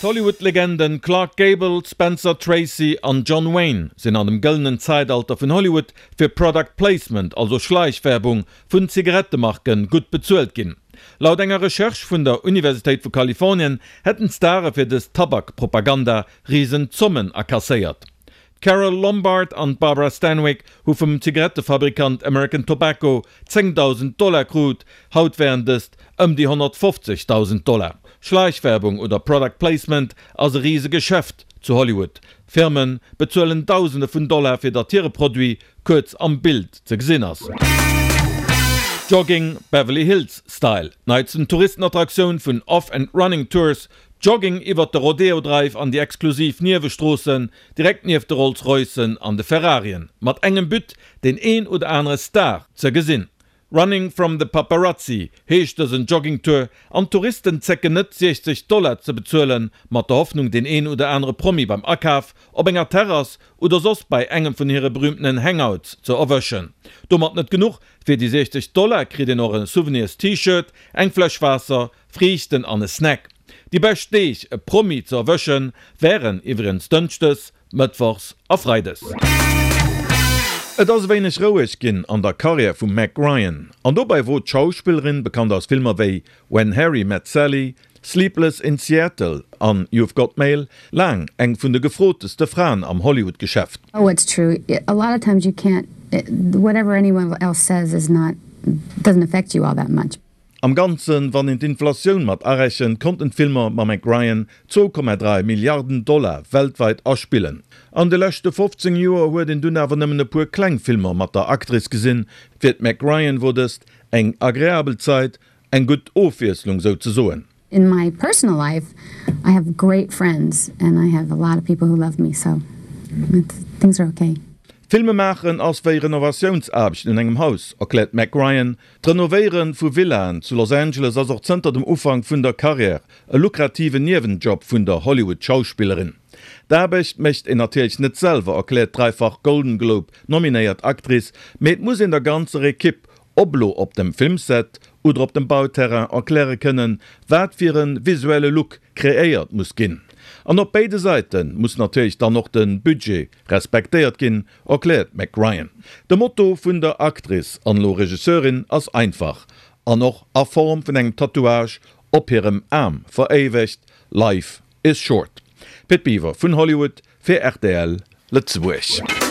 D'Hollywood-Legenden Clark Gable, Spencer Tracy an John Wayne sinn an dem gëllenen Zäitalter vun Hollywood fir Product Placement, also Schleichwerbung vun Zigarettemarken, gutt bezuelt ginn. Laut enger Recherche vun der Universitéit vu Kalifornien hätten d'Stare fir dës Tabak-Propaganda risen Zommen akasséiert. D'Carole Lombard an d'Barbara Stanwyck hu vum Zigarettefabrikant American Tobacco 10.000 Dollar krut, haut wären dëst ëm déi 150.000 Dollar. Schleichwerbung oder Product Placement ass e rise Geschäft zu Hollywood. Firme bezuelen Dausende vun Dollar fir datt hire Produit kuerz am Bild ze gesinn ass. Jogging Beverly Hills Style, d'neitsten Touristenattraktioun vun Off and Running Tours, Jogging iwwert de Rodeo Drive an déi exklusiv Niewestroossen, direkt nieft de Rolls Roycen an de Ferrarien, mat engem But, deen een oder anere Star ze gesinn. Running from the Paparazzi heescht dësen Joggingtour an d'Touristen zécken net 60 Dollar ze bezuelen, mat der Hoffnung deen een oder anere Promi beim Akaf, op enger Terrass oder soss bei engem vun hire berühmtenen Hangouts ze erwëschen. Domat net genuch, fir déi 60 Dollar kritt een och e Souvenirs T-Shirt, eng Fläsch Waasser, Friichten an e Snack. Déi bescht Deeg e Promi ze erwëschen wären iwwregens Dënschdes, Mëttwochs a Freides. Et ass e wéineg roueg ginn an der Karriär vum Meg Ryan. An dobäi wor d'Schauspillerin, bekannt aus Filmer wéi When Harry Met Sally, Sleepless in Seattle an You've Got Mail, laang eng vun de gefroteste Fraen am Hollywood-Geschäft. Oh it's true, a lot of times you can't, whatever anyone else says is not, doesn't affect you all that much. Am Ganzen, wann een d'Inflatioun mat arechent, konnten d'Filmer mam Meg Ryan 2,3 Milliarden Dollar weltweit aspillen. An de leschte 15 Joer huet een dunn awer nëmmen e puer kleng Filmer mat der Actrice gesinn. Fir d'Meg Ryan wor dëst eng agreabel Zait, eng gutt Ofwiesslung souzesoen. In my personal life I have great friends and I have a lot of people who love me so things are okay. Filme maachen ass wéi Renovatiounsaarbechten un engem Haus, erkläert d'Meg Ryan. D'Renovéiere vu Villaen zu Los Angeles ass och zënter dem Ufank vun der Karriär e lukrativen Niewenjob vun der Hollywood-Schauspillerin. D'Aarbecht mécht een natierlech net selwer, erkläert d'dräifach Golden Globe-nominéiert Actrice, mee et muss een der ganzer Ekipp, ob lo op dem Filmset oder op dem Bauterrain, erkläre kënnen, wat fir e visuelle Look kreéiert muss ginn. An op béide Säite muss natierlech dann och de Budget respektéiert ginn, erkläert d'Meg Ryan. De Motto vun der Actrice an elo Regisseurin ass einfach, an och a Form vun engem Tatouage op hirem Aarm veréiwegt, Life is short. Pit Biwer vun Hollywood fir rtl Lëtzebuerg.